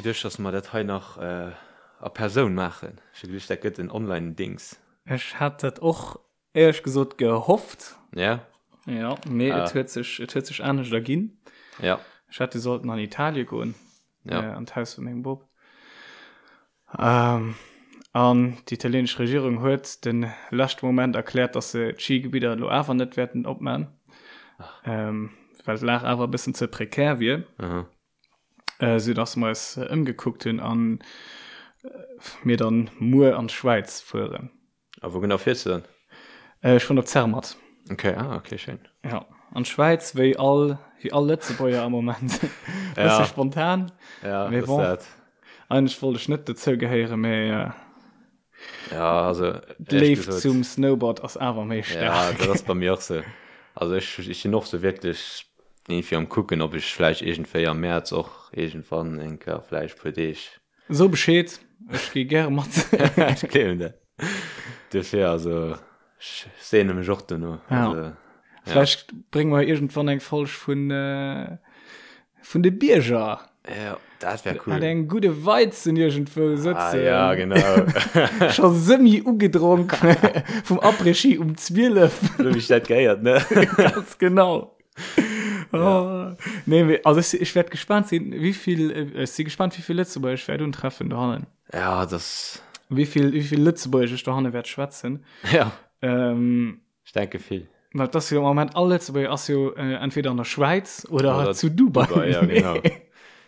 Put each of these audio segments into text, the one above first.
geduecht, dass mer dat hei nach a Persoun maachen. Ech hu geduecht, dat gëtt en Online-Dings. Ech hat dat och éierlech gesot gehofft. Ja. Ja, mee et huet sech, et huet sech anescht erginn. Ja. Ech hätt jo sollten an Italie goen. Ja. An d'Haus vu mengem Bop. Ähm, an déi italieenesch Regierung huet de leschte Moment erkläert, dass se d'Schigebidder elo awer net wäerten opman. Ähm, well d'Lag awer e bëssen ze prekär wier. Aha. Äh, sou dass mer eis ëmgekuckt hunn an mir dann muer an d'Schwäiz fueren. A wou genau fiers du dann? Äh, ech fueren op Zermatt. Okay, ah, okay, schéin. Ja, an d'Schwäiz, wéi all, wéi all Lëtzebuerger am Moment. Ja. Bësse spontan. Ja, Mee das bon. dat. Eigentlech wollt ech net dozou gehéieren, mee äh, Ja, also, ehrlich d'Léift gesot, zum Snowboard ass awer méi Ja, staark. dat ass bei mir och sou. Also ech, ech sinn och sou wierklech irgendwie am kucken, ob ech vläicht iergendwéi am Mäerz och iergendwann eng Kéier vläicht puer Deeg So Bescheed, ech gi gäre mat. Ech gleewen dat. Duerfir, also ech seene mech och dono. Ja. Also, ja. Vläicht brénge mer iergendwann eng Folg vun, äh, vun de Bierger. Ja, dat wär cool. Mat engem gudde Weizen iergendwou Ah, sëtzen. ja, genau. Scho semi ugedronk vum Après-Ski um 12. Sou wéi ech dat gehéiert, ne? Ganz genau. Oh. Nee, mee, also ech, ech wäert gespannt sinn, wéi vill, äh, ech si gespannt, wéi vill Lëtzebuerger ech wäert untreffen dohannen. Ja, das. Wéi vill, wéi vill Lëtzebuergesch ech dohanne wäert schwätzen. Ja. Ähm, Ech denke vill. Well et ass jo am Moment all Lëtzebuerger ass jo äh, entweder an der Schwäiz oder, Oder zu Dubai. Dubai, ja, genau.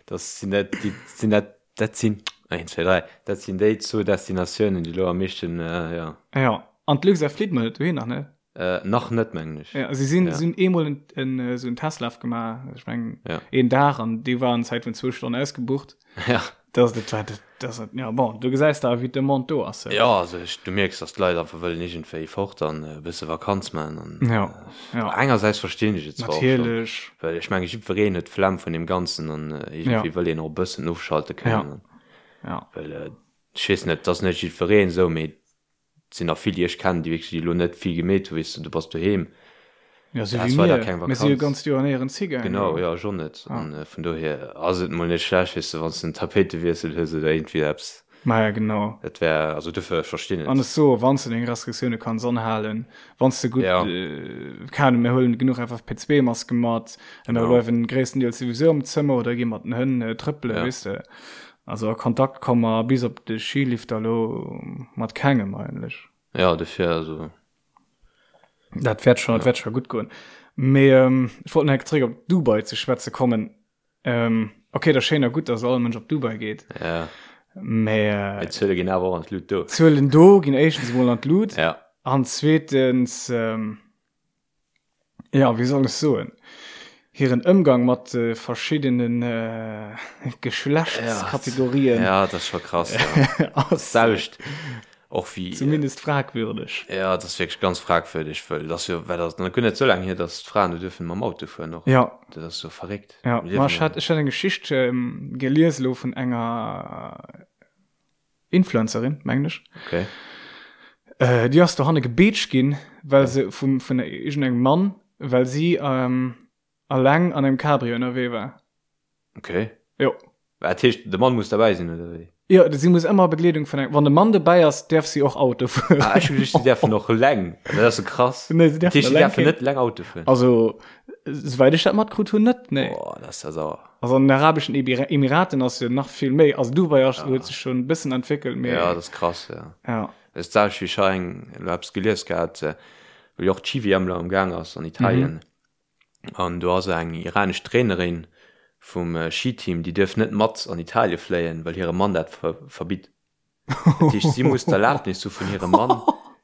Das sinn dat, déi sinn dat, dat sinn, 1, 2, 3, dat sinn déi zwou Destinatiounen, déi lo am meeschten, äh, ja. Ja, an d'Luxair flitt mol net dohin nach, ne? Äh, nach net, mengen ech. Ja, si sinn, Ja. si hunn eemol en, en, äh, sou en Testlaf gemaach, ech mengen Ja. een Dag, an dee war an Zäit vun zwou Stonnen ausgebucht. Ja. Das, dat war, dat, das, ja, bon, du gesäis da, wéi d'Demande do ass. Ja, also ech, du mierks, dass d'Leit einfach wëllen iergendwéi fort an e bësse Vakanz maachen an Ja, ja. engersäits verstinn ech et zwar och schonn, Natierlech. well ech menge jiddwereen huet d'Flemm vun deem Ganzen an iergendwéi Ja. wëll een och e bëssen ofschalte Ja. kënnen an Ja. well ech weess net, et ass net jiddwereen esou, mee Et sinn nach vill déi ech kennen, déi wierklech elo net vill gemeet hunn, weess de, du bass doheem. Ja, sou Dat wéi war da mir. keng Mir si jo Vakanz. ganz d'Joer néierens higaangen. Genau, jo, ech och net. Ah. An vun dohier ass et mol net schlecht, weess de, wann s de en Tapéitewiessel hues oder iergendwéi eppes. Maja, genau. Dat wär, also dofir, ech verstinn An et. ech soe, wann s de deng Restriktioune kanns anhalen, wann s de gutt, Ja. keng Ahnung, mir huelen genuch FFP2-Maske mat, a mir Genau. bleiwen gréisstendeels souwisou am Zëmmer oder gi mat den Hënn trëppelen, Ja. weess de. Also a Kontakt komme mer bis op de Skilifter elo mat kengem eigentlech. Ja, dofir, also. Dat wäert schon, dat wäert scho gutt goen. Mee ech wollt nach eng Kéier zréck op Dubai ze schwätze kommen. Okay, dat ass schéin a gutt, datt all Mënsch op Dubai geet. Ja. Mee. Mee d'Zuele ginn awer och an d'Lut do. D'Zuelen do ginn éischtens emol an d'Lut. Ja. An zweetens. Jo, wéi soll ech soen, hiren Ëmgang mat de verschiddene Geschlechtskategorien Ja, dat ass scho krass, ja. ass D'selwecht och wéi. zumindest fragwürdeg. Ja, dat ass wierklech ganz fragwürdeg, wëll dat ass jo, well dat ass nach guer net esou laang hier, datt d'Fraen do duerfen mam Auto fueren och. Ja. Dat ass jo verréckt. Ja, Mir ma liewen ech hat, jo. ech hat eng Geschicht gelies elo vun enger Influencerin, mengen ech. Okay. Äh, déi ass dohanne gebeetscht ginn, well se vum, vun iergendengem Mann, well si ähm, alleng an engem Cabrio ënnerwee war. Okay. Jo. Dat heescht, de Mann muss derbäi sinn, oder wéi? Jo, si muss ëmmer a Begleedung vun engem, wann de Mann dobäi ass, däerf si och Auto fueren. Ah, ech hu geduecht, si däerfen och eleng. Dat ass jo krass. Nee, si Dat däerfen heescht, si eleng däerfen keen. net eleng Auto fueren. Also, souwäit ech dat matkritt hunn, net, nee. Boah, dat ass ja sauer. Also an den arabeschen Emiraten ass jo nach vill méi, also Dubai ass, huet sech schon e bëssen entwéckelt, mee. Ja, dat ass krass, ja. Ja. Dat ass d'selwecht wéi ech hei eng, elo eppes gelies gehat, wou jo och d'Ski-WM elo am Gaang ass an Italien. An do ass eng iranesch Trainerin vum Skiteam, déi duerf net mat an Italie fléien, well hire Mann dat verbitt. Dat heescht, si muss d'Erlaabnis hu vun hirem Mann,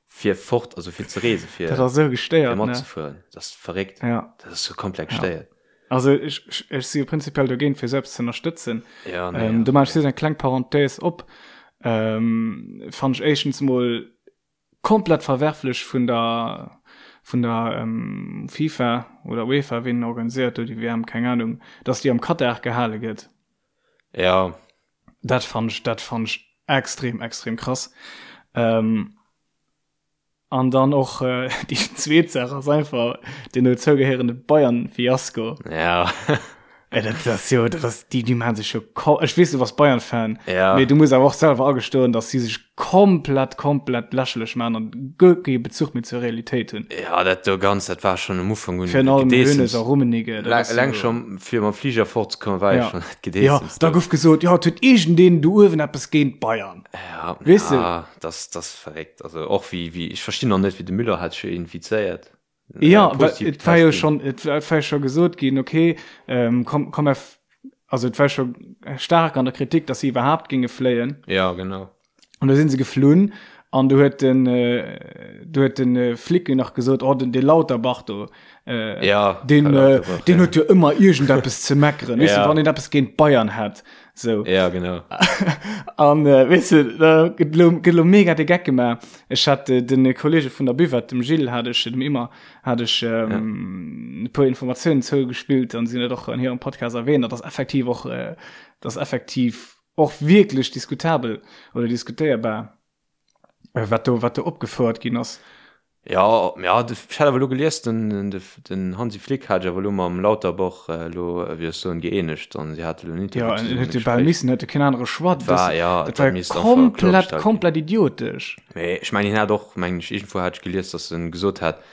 fir fort, also fir ze reesen, fir, Dat ass esou fir gestéiert, ne? matzefueren. Dat ass verréckt. Ja. Dat ass sou komplett Ja. gestéiert. Also ech, ech, ech si jo prinzipiell dogéint, fir sou eppes ze ënnerstëtzen. Ja, nee, Ähm, ja. do maache ech just eng kleng Parenthèse op. Ähm, fannen ech éischtens mol komplett verwerflech vun der, vun der ähm, FIFA oder UEFA, wien organiséiert do déi WM, keng Ahnung, dass déi am Katar gehale gëtt. Ja. Dat fand ech, dat fand ech extrem, extrem krass. Ähm, an dann och äh, déi zweet Saach ass einfach den dozougehéierende Bayern-Fiasko. Ja. Ey, dat ass jo, dat ass, déi, déi maachen sech jo, ko ech weess, du bass Bayern-Fan, Ja. mee du muss awer och selwer agestoen, dass si sech komplett, komplett lächerlech maachen an guer kee Bezuch méi zur Realitéit hunn. Ja, dat do ganz, dat war schonn um Ufank un Virun allem Gedeessems. Hoeneß a Rummenigge, dat ass Eleng jo. scho fir mam Fliger fortzekommen, war jo Ja. schonn dat Ja, Gedeessems da do. gouf gesot, jo, et huet iergendeen do uewen eppes géint d'Bayern. Ja, Weess de? ja, das, das verréckt. Also och wéi, wéi, ech verstinn och net, wéi de Müller hat sech infizéiert. Ja, well et war jo schon, et war jo scho gesot ginn, okay, ähm, komm, komm, also et war scho staark an der Kritik, dass si iwwerhaapt géinge fléien. Ja, genau. An da sinn se geflunn an du huet den, äh, du huet den äh, Flick nach gesot, oh, den, de Lauterbach do, äh, ja, den, äh, den huet jo ëmmer iergendeppes ze meckeren, weess ja. du, wann een eppes géint Bayern hätt. So. Ja, genau. An äh, weess du, da gëtt lo, gëtt lo mega de Geck gemaach. Ech hat äh, den Kollege vun der Buvette, dem Gilles, hat ech, dem Immer, hat ech ähm, ja. e puer Informatiounen zougespillt an si huet och an hirem Podcast erwähnt, dat ass effektiv och, äh, dat ass effektiv och wierklech diskutabel oder diskutéierbar. Äh, wat do, wat do opgefouert ginn ass. Ja, ja, ech hat awer elo gelies, den, den Hansi Flick hat sech awer elo mam Lauterbach elo, wéi ech soen, gëeenegt an si hate elo en Interview Ja, en huet jo bal missen, huet jo keen anere Choix. Dat war, ja, dat war jo komplett, komplett idiotesch. Mee ech mengen, hien hat och, mengen ech, iergendwou hat ech gelies, datt en gesot hat,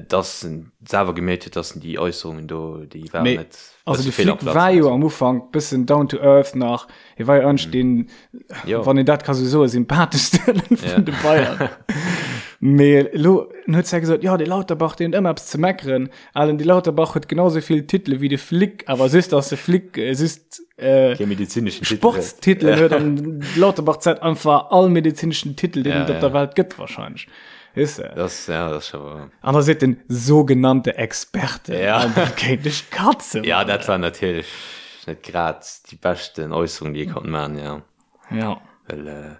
Dass en selwer gemierkt huet, dass en déi Äusserungen do, déi waren Mee, net also bësse de fehl am Flick Platz war an jo esou. am Ufank bëssen down to earth nach. Hie war jo eigentlech deen, Jo. wann een dat ka sou soen, sympatheschste vun Ja. de Bayern. Mee elo en huet zwar gesot, jo, dee Lauterbach, deen huet ëmmer eppes ze meckeren. Alen, dee Lauterbach huet genau sou vill Titele wéi de Flick, awer just, dass de Flick just äh, Kee medezineschen Titel huet. Sportstitelen huet an de Lauterbach zäit einfach all medezineschen Titel, deen Ja, et op ja. der Welt gëtt wahrscheinlech. Weess de? Das, ja, das schon wahr. An da seet den sogenannte Experte, Ja. an dat kéint ech katzen. Ja, dat war natierlech net grad déi beschten Äusserung, déi ee konnt maachen, ja. Ja. Well, äh,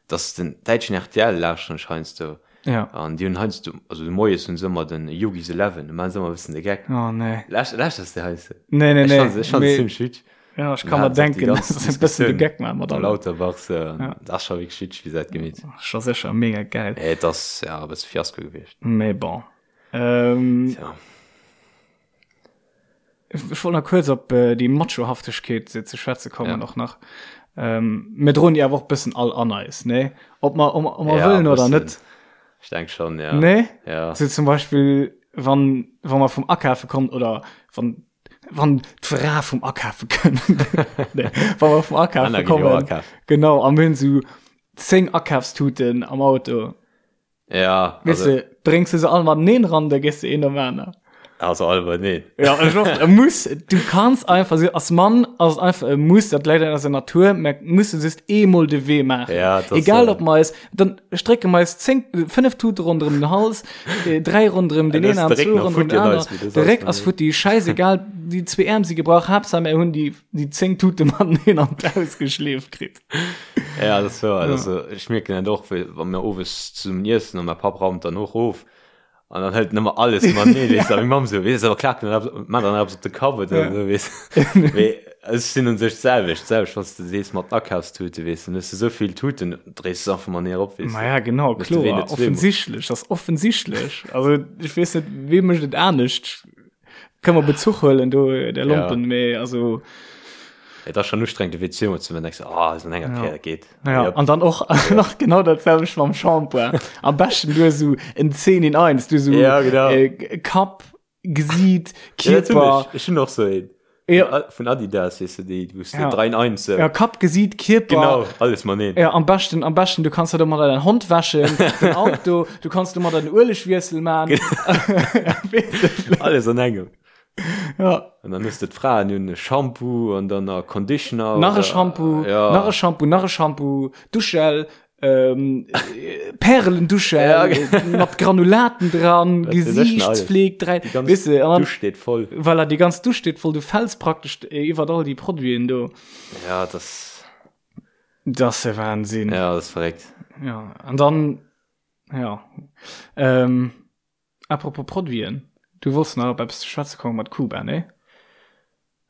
dass den däitschen RTL lauschteren ech heiansdo. Ja. An déi hunn heiansdo, also de Moies hunn se ëmmer den Yogis Eleven, do maachen se ëmmer e bëssen de Geck. Oh, nee. Lauscht, lauschters de heiansdo? Nee, nee, Ech nee. fand se, ech fand se Mee- zimmlech witzeg. Ja, ech ka mer denken, dass se e bëssen de Geck maache mat allem. allem. Lauterbach, so, Ja. dat ass scho wierklech witzeg, wéi se dat gemeet hunn. Scho sécher mega geil. Mee et ass, ja, e bësse Fiasko gewiescht. Mee bon. Ähm, Tja. Ech wollt nach kuerz op äh, déi Machohaftegkeet ze schwätze kommen Ja. och nach. Ähm, mir droen déi awer och bëssen all an eis, nee? Ob mer, ob mer, ob mer Ja, wëllen oder bëssen. net. Ech denk schon, ja. Nee? Ja. So zum Beispill, wann, wann mer vum Akafe kommen oder wann wann d'Fra vum Akafe kënnt. nee, wann mer vum Akafe Anna ginn jo kommen. akafen. Genau, a mir hunn sou 10 Akafstuten am Auto. Ja, Weess also, de, bréngs du se all mateneen ran, da gees de een nom aner. also all mateneen. Ja, ech och, e Muss, du kanns einfach, so, als Mann ass et einfach e Muss, dat läit an eiser Natur, mer musse just eemol de Wee maachen. Ja, dat ass, Egal äh, ob mer eis, dann strécke mer eis 10, 5 Tute ronderëm den Hals, 3 ronderëm den een Aarm, 2 ronderëm den aner. De Réck ass futti, schäisegal, déi zwee Äerm si gebrach, Haaptsaach mir hunn déi, déi 10 Tute mateneen an d'Haus geschleeft kritt. Ja, dat ass wouer. Also, ech mierken dat och, wa mir owes zesummen iessen an mäi Papp raumt dann och of an dann hëlt en ëmmer alles mateneen, weess de, a meng Mamm esou, weess de, awer klaakt en dann eppes, maacht dann eppes op de Kapp oder esou, weess de. Mee ech sinn un sech d'selwecht, d'selwecht, wann s de sees mat den Akafstute, weess de, dann hues de esou vill Tuten, dréis de se einfach mateneen erop, weess de. Maja, genau, Hues de wéi kloer, net zweemol. offensichtlech, ass offensichtlech. Also, ech weess net, wee mécht et anescht? Kënne mer Bezuch huelen do, der Lompen, Ja. mee also. Et ass schon ustrengend de Wee zweemol ze man, denkst du, ah, ass an enger Ja. Kéier, dat geet. Ja, Jop. an dann och nach genau dat selwecht mam Shampoing. Am beschten du esou en 10 in 1, du esou Ja, genau. äh, Kapp, Gesiit, Ja, dat hunn Kierper. ech. Ech hunn och sou een. Ja. Vun Adidas, weess de, déi, wou s de Ja. 3 in 1 sou. Ja, Kapp, Gesiit, Kierper. Genau, alles mateneen. Ja, am beschten, am beschten, du kanns da domadder dein Hond wäschen, den Auto, du kanns domadder den Uelegwiessel man. Alles an engem. Ja. An dann hues de d'Fraen hunn e Shampoo an dann a Conditioner. Nach e oder- Shampoo, ja. nach e Shampoo, nach e Shampoo, Duschgel, ähm, Perlenduschgel Ja, äh, mat Granulaten dran, Wat weess ech denn alles. Gesiichtspfleg, drei, Déi ganz weess de, an dann, Dusch steet voll. voilà, déi ganz Dusch steet voll, du fäls praktesch äh, iwwer all déi Produiten do. Ja, das, Das ist der Wahnsinn. ja, das ist verréckt. Ja, an dann, ja, ähm, Apropos Produiten, du wollts nach op eppes ze schwätze komme mat Kuba, nee?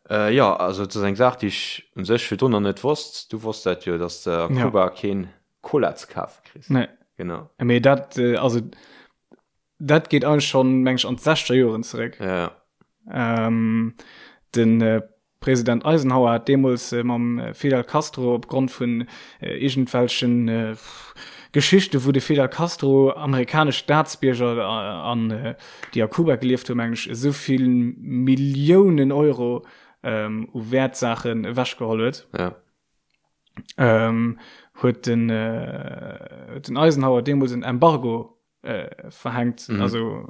Äh, jo, also et ass eng Saach, déi ech u sech virdrun nach net wosst. Du wosst dat jo, dass de a Ja. Kuba keen Cola ze kafe kriss. Nee. Genau. Mee dat, also dat geet eigentlech schonn, meng ech, an d'sechzeger Joren zeréck. Ja. Ähm, Den President Eisenhower hat deemools mam Fidel Castro opgrond vun iergendwelchen Geschichten, wou de Fidel Castro amerikanesch Staatsbierger an déi a Kuba gelieft hu mengen ech, esou vill Milliounen Euro u Wäertsaachen ewechgeholl huet, huet den Eisenhower deemools en Embargo verhänkt, also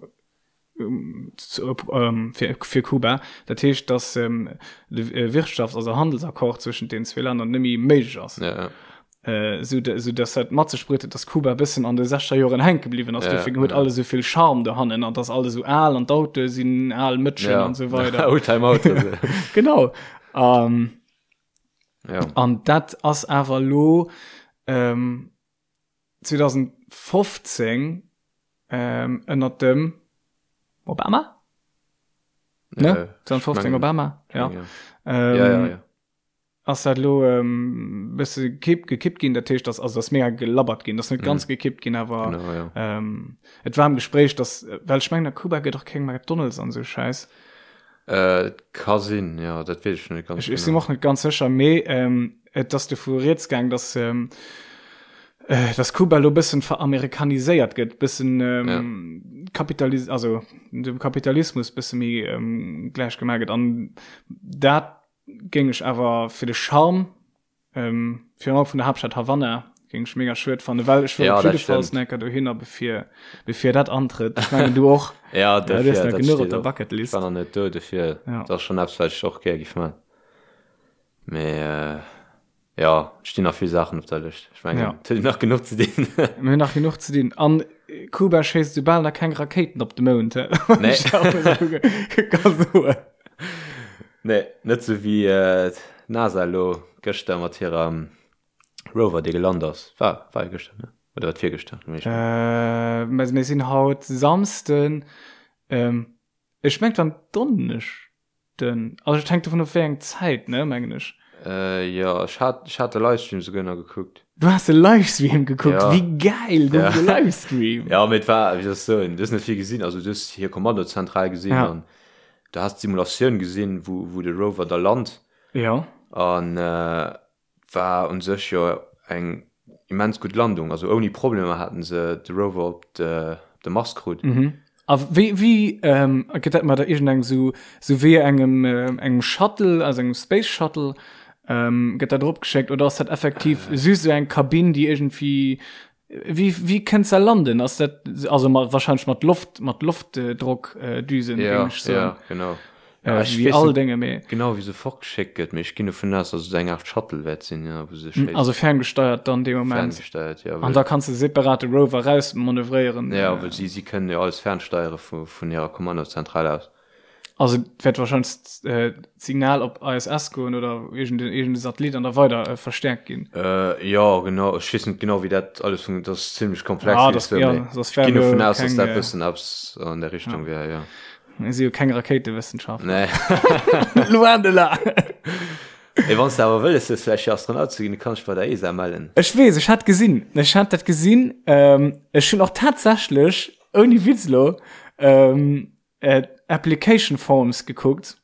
fir, fir Kuba. Dat heescht, dass ähm, de Wirtschafts-, also Handelsaccord zwëschent den zwee Länner net méi méiglech ass. Ja, ja. Äh, sou, sou dass dat mat sech bruet huet, dass Kuba e bëssen an de 60er Joren hänke bliwwen ass. Ja, Dofir huet ja. alles esou vill Charme dohannen an dass alles esou al an d'Autoe sinn al Mëtschen Ja. an esou weider. Oldtimer-Autoen. Genau. Ähm, Ja. An dat ass awer elo ähm, 2015 ënnert dem Obama? Ne? 2015 Obama? Ja. Ähm, ja, ja, ja. Ass dat lo ähm, bësse kipp, gekippt ginn, dat heescht, dass, also ass mega gelabbert ginn, ass net ganz mhm. gekippt ginn, awer genau, ja. ähm, et war am Gespräch, dass, well ech mengen, a Kuba gëtt och keng McDonald's an sou Scheiß. Äh, ka sinn, ja, dat weess ech net ganz Ech, ech sinn och net ganz sécher, mee ähm, et ass dovu rieds gaang, dass, ähm, äh, dass Kuba lo bëssen veramerikaniséiert gëtt, bëssen ähm, ja. Kapitalis also dem Kapitalismus bësse méi ähm, gläich gemaach gëtt. An dat géing ech awer fir de Charme Ähm, virun allem vun der Haaptstad Havanna géing ech mega schued fannen, well ech wëll Ja, op dat jidde Falls stimmt. enker dohinner bevir, bevir dat antrëtt. Ech mengen du och. Ja, Ja, du dofir, hues nach dat genuch op steet der och. Ech Bucketlist. war nach net do, dofir, Ja. dat ass schonn eppes, wat ech och gär giff man. Mee äh, ja, et stinn nach vill Saachen op der Lëscht. Ech mengen, Ja. et huet een nach genuch ze dinn. Mir hunn nach genuch ze dinn. An Kuba schéisst soubal nach keng Rakéiten op de Mound, hä? Nee. Ech auch esou ka soen. Nee, net sou wéi d'NASA elo gëschter mat hirem Rover, dee gelant ass. War, war jo gëschter, ne? Oder war et virgëschter? Mee ech Äh, mä mir sinn haut Samsden. Ähm, ech mengt war en Donneschden. Also et hänkt dovun of wéi eng Zäit, ne, mengen ech. Äh, jo, ech hat, ech hat de Livestream souguer nach gekuckt. Du has de Livestream gekuckt? Ja. Wéi gäil, gouf Ja. et e Livestream? Ja, mee et war, wéi soll ech soen, du hues net vill gesinn. Also du hues hir Kommandozentral gesinn Ja. an du has d'Simulatioun gesinn, wou, wou de Rover da lant. Ja. An äh, war un sech jo eng immens gutt Landung. Also ouni Problemer haten se de Rover op de, op de Mars krut. Mhm. A wéi, wéi ähm, gëtt dat mat der iergendengem sou, sou wéi engem, äh, engem Shuttle, also engem Space Shuttle, ähm, gëtt dat erop geschéckt oder ass dat effektiv äh. just sou eng Kabinn, déi iergendwéi Wéi, wéi kënnt se landen? Ass dat, also mat, wahrscheinlech mat Loft, mat Loftdrockdüsen, ja, géing ech soen. Ja, genau. Ja, ech weess all Dénge, mee. Genau, wéi se fortgeschéckt gëtt, mee ech ginn dovun aus, dass et eng Aart Shuttle wäert sinn, ja, wou se schéisst. Also ferngesteiert dann dee Moment. Ferngesteiert, ja. An da kanns de separat de Rover rausmanövréieren. Ja, well si, si kënnen jo alles fernsteiere vu, vun hirer Kommandozentral aus. Also et wäert wahrscheinlech d'Signal op ISS goen oder iergend e Satellit an da weider verstäerkt ginn. Jo, genau. Ech weess net genau, wéi dat alles funktioniert. Dat ass zimmlech komplex. Ja, dat, ja, soss wär ech ginn dovun aus, dass dat e bëssen eppes an der Richtung wär, jo. Mir si jo keng Rakéitewëssenschaftler. Nee. Loin de là. Mee wann s de awer wëlles hues, vläicht fir Astronaut ze ginn, du kanns dech bei der ESA mellen. Ech weess, ech hat gesinn, ech hat dat gesinn. Ech hunn och tatsächlech, ouni Witz elo, Application Forms gekuckt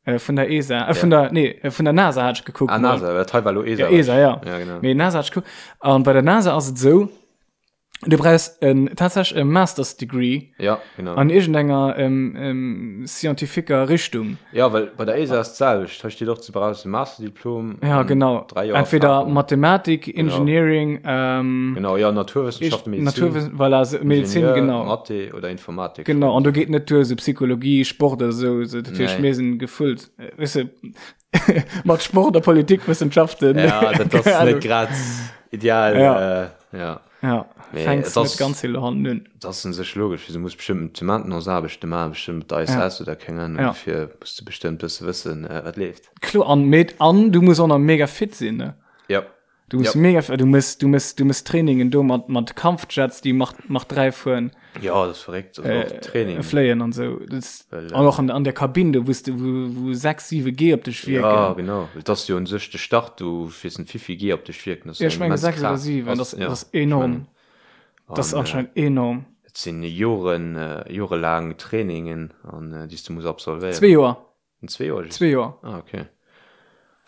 äh, vun der ESA äh, vun ja. der nee äh, vun der NASA hat ich gekuckt ah, NASA dat hei war lo ESA ja, ESA ja. ja genau. nee, NASA hat ich gekuckt an bei der NASA ass et sou du brauchst en tatsächlich e Masters Degree ja genau an irgendenger ähm, ähm, scientifiquer Richtung ja well bei der ESA ass d'selwecht hei steet och du brauchst e Masterdiplom ja genau entweder Erfahrung. Mathematik Engineering genau, ähm, genau ja Naturwissenschaften Medizin Naturwiss voilà, so, Medizin Ingenieur, genau Mathe oder Informatik genau an du geht net duer so Psychologie Sport oder so, so dat heescht nee. mir sinn gefüllt äh, weißt du, mat Sport a Politikwissenschaften ja dat ass net grad ideal ja. Äh, ja. Ja, Mee fänks et ass- net ganz vill Hand un. Dat ass un sech logesch, du muss bestëmmt Maintenance-Aarbechte maachen, bestëmmt mat der ISS oder keng Ahnung, Ja. dofir muss du bestëmmt bësse wëssen, äh, wat leeft. Kloer, an, mee, an du muss och nach mega fit sinn, ne? Ja. Du muss Ja. mega, du muss, du muss, du muss Trainingen do mat, mat Kampfjets, déi Mach, Mach 3 fueren, Ja, dat ass verréckt, also och Training. äh, fléien an sou. Das, Well, an och an, an der Kabinn do, wous du, wou, wou 6, 7 G op dech Ja, wierken. genau. Well et ass jo un sech de Start, do weess net wéivill G op dech wierken. Dat ass Ja, ech eng menge immens 6 oder Kraaft. 7, Ass, das, ja, das ass ech mengen. enorm. Das ass An, äh, anscheinend enorm. et sinn Joren, jorelaang Trainingen, an, déi s du muss absolvéieren. Zwee Joer. Zwee Joer? Zwee Joer. Ah, okay.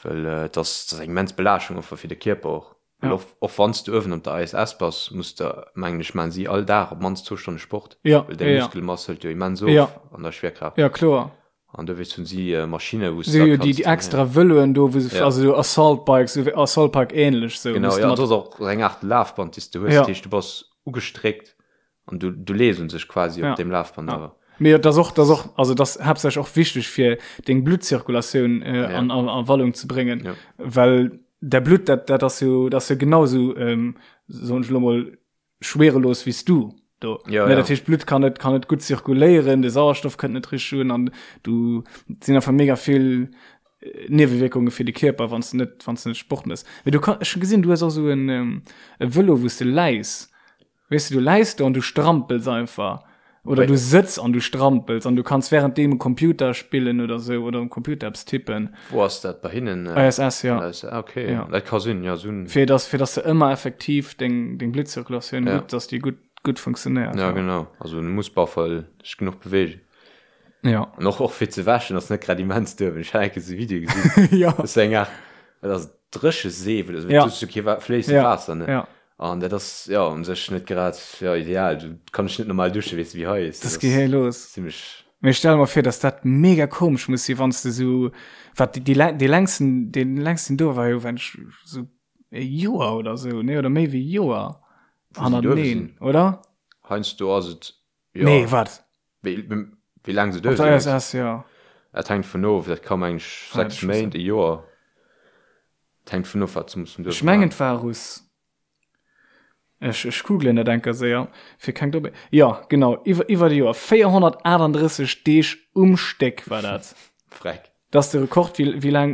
Well et ass, dat ass eng immens Belaaschtung och fir de Kierper och. Well och, och wann s du uewen op der ISS bass, muss de, mengen ech, maachen si all Dag op d'mannst zwou Stonne Sport. Ja, Well deng ja, ja. Muskelmass hëlt jo immens of Ja. an der Schwerkraaft. Ja, kloer. An dowéinst hunn si Maschinne, wou s Si du hu jo da déi, kanns déi extra Vëloen do, wou se, Ja. also sou Assault Bikes, sou Assault Bike ähnlech sou. Genau, wou s du ja, mat- dat ass och eng Aart Lafband, déi s du hues. Ja. Dat heescht, du bass ugestréckt An du, du lees un sech quasi ja. op dem Lafband awer. Mee dat ass och, dat ass och, also dat ass haaptsächlech och wichteg fir deng Bluttzirkulatioun äh, Ja. an, an, an Wallung ze bréngen, Ja. well der Blutt dat, dat ass jo, dat ass jo genau sou, ähm, soen ech lo mol, schwerelos wéi s du do. Ja, ne, ja. Dat heescht, d'Blutt kann net, kann net gutt zirkuléieren, de Sauerstoff kënnt net richteg un an du et sinn einfach mega vill äh, Niewewierkunge fir de Kierper, wann s du net, wann s du net Sport mëss. Mee du kann, ech hu gesinn, du hues och sou en, ähm, e Vëlo, wou s de läis. Weess de, du läis do an du strampels einfach. Oder du sëtz an du strampels an du kanns währenddeem um Computer spillen oder sou oder um Computer eppes tippen. Wou ass dat? Bei hinnen? ISS, ja. Ah, okay. Ja. Dat ka sinn, ja, sou. Fir dass, fir dass de ëmmer effektiv deng, deng Bluttzirkulatioun Ja. gutt, dass déi gutt, gutt funktionéiert. Ja, genau. Also du muss op alle Fall dech genuch beweegen. Ja. An och, och fir ze wäschen ass net grad immens duerwen. Ech hat eng Kéier sou e Video gesinn. Ja. Dat ass eng Aart, dat ass Drécheseef oder sou. Ja. Du hues jo kee Wa-, fléissend Ja. Waasser, ne? Ja. An dat ass jo un sech net grad jo ideal. Du kann ech net normal duschen, weess de wéi hei is. Dat gehéi los. Zimmlech. Mee ech stelle mer vir, dass dat mega komesch muss si wann s de sou, wat déi déi dee längsten dee längsten do war jo wenn ech sou e Joer oder sou, nee oder méi wéi e Joer hannerteneen, oder? Heiansdo ass et jo. Nee, wat? Wéi wéi laang se Op duerch der sinn? ISS, jo. Dat hänkt vun of, dat ka meng ech Ah, 6 Méint, e Joer. Dat hänkt vun of wat se mussen Ech duerch mengen maachen. et war Russ. Ech ech googlen dat enker séier fir keng Doppel. Jo, genau, iwwer iwwer e Joer, 438 Deeg um Stéck war dat. Freck. Dat ass de Rekord wéi wéi laang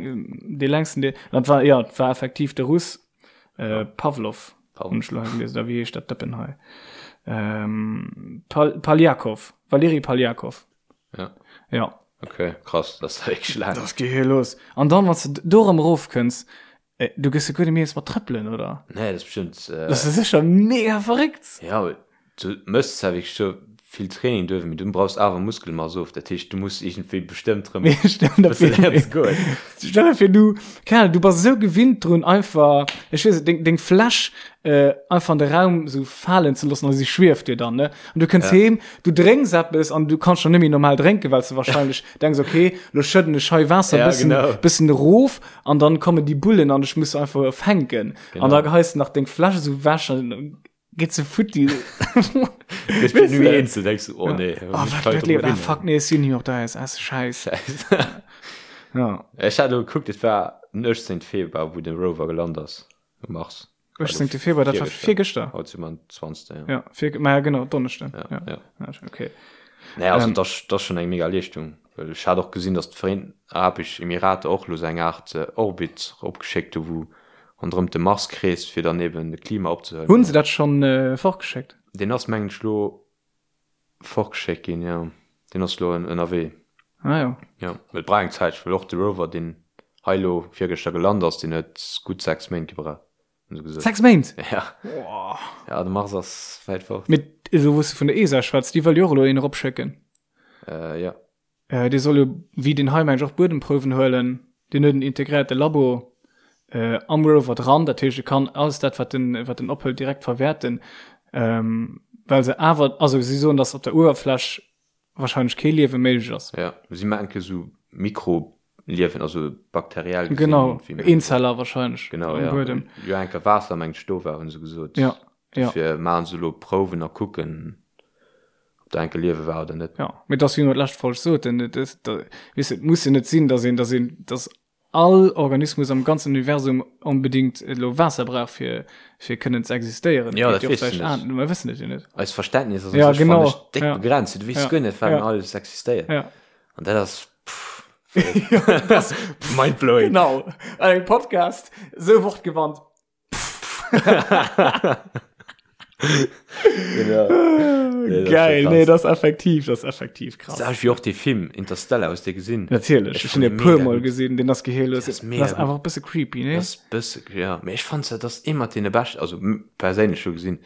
dee längsten dee dat war jo, et war effektiv de Russ äh, Pavlov hunn ech elo hei gelies oder wéi heescht dat Dëppen hei? Ähm, Pal Paljakov, Valeri Paljakov. Ja. Ja. Okay, krass, dat ass wierklech laang. Dat geet los. An dann, wann s de do erëm erofkënns, äh, du gëss jo guer net méi eens mat trëppelen, oder? Nee, dat ass bestimmt. Äh, dat ass sécher mega verréckt. Ja, du mëss zwar wierklech scho vill Training duerf, mee du brauchs awer Muskelmass of. Dat heescht, du muss iergendwéi bestëmmt rëm Mee stell der bësse vir, léieren ze goen. stell der vir, du, keine Ahnung, du bass esou gewinnt drun, einfach, ech weess net, deng, deng Fläsch äh, einfach an de Raum sou falen ze loossen, a si schwieft dir dann, ne? An du kënns Ja. heem, du drénks eppes an du kanns schon net méi normal drénken, well s du wahrscheinlech denks, okay, lo schëdden ech hei Waasser Ja, bëssen, genau. bëssen erof an dann kommen déi Bullen an ech muss se einfach fänken. Genau. An da geheis du nach deng Fläsch sou wech an geet se futti. Gëss du ni eens, du denkst, oh nee. Oh, wat, wat lebt? Ah, fuck, nee, ech sinn hier op der ISS, scheiß. Ja. Ech hat elo gekuckt, et war den 18. Februar, wou de Rover gelant ass um Mars. 18. Februar, dat war virgëschter. Haut si mer den 20. Ja. Ja, vir, ma ja, genau, Donneschden. Ja, Ja. ja. Ja, okay. Naja, also Ähm. dat ass dat ass schonn eng mega Leeschtung. Well ech hat och gesinn, datt d'Vereenten Arabesch Emirater och elo sou eng Aart Orbit eropgeschéckt hu wou ronderëm de Mars kreest, fir dann eben de Klima opzehuelen. Hunn se dat schonn fortgeschéckt? Deen ass mengen ech elo fortgeschéckt ginn, jo. Deen ass elo ënnerwee. Ah jo. Jo, well et brauch eng Zäitche, well och de Rover, deen hei elo virgëschter gelant ass, deen huet gutt 6 Méint gebraucht, hunn se gesot. 6 Méint? Ja. Ja, de Mars ass wäit fort. Mee elo wou s de vun der ESA schwätz, déi wëll jo och elo een eropschécken. Äh, jo. Äh, dee soll jo, wéi deen hei mengen ech, och Buedemprouwen huelen. Deen huet en integréierte Labo äh, am Rover dran, dat heescht e kann alles dat wat en wat en ophëlt direkt verwäerten, ähm, well se awer, also si soen, datt op der Uewerfläch wahrscheinlech kee Liewe méiglech ass. Ja, si menke sou Mikroliewen, also bakteriell gesinn. Genau, wéi mer- Eenzeller wahrscheinlech Genau, am ja. Buedem. Jo, enker Waasser mengt ech do war, hunn se gesot. Ja, ja. Dofir maachen se elo Prouwen a kucken, ob do enke Liewe war oder net. Ja, mee et ass wéi mer d'lescht Folg soten, et ass, da, weess de, et muss jo net sinn, datt een, datt een, datt all Organismus am ganzen Universum onbedingt elo Waasser brauch fir, fir kënnen ze existéieren. Ja, Et dat geet jo weess du vläicht net. an, mer wëssen et jo net. Eist Verständnis ass un Ja, sech, genau, fannen ech, déck ja. begrenzt. Du weess Ja, guer net, wat ja. alles existéiert. Ja. An dat ass, pff, mindblowing. Genau, an engem Podcast esou wortgewandt. Genau. Nee, das Geil, ist nee, das effektiv, das effektiv krass. Das wie och de Film Interstellar aus dir gesinn. Natierlech, Ich ich hun fand e puer mega Mol gut. gesinn, den ass geheellos. Das ist mega Das gut. einfach bësse creepy, ne? Das bësse ja, mee ech fand dat ass ee mat deene beschten, also perséinlech scho gesinn,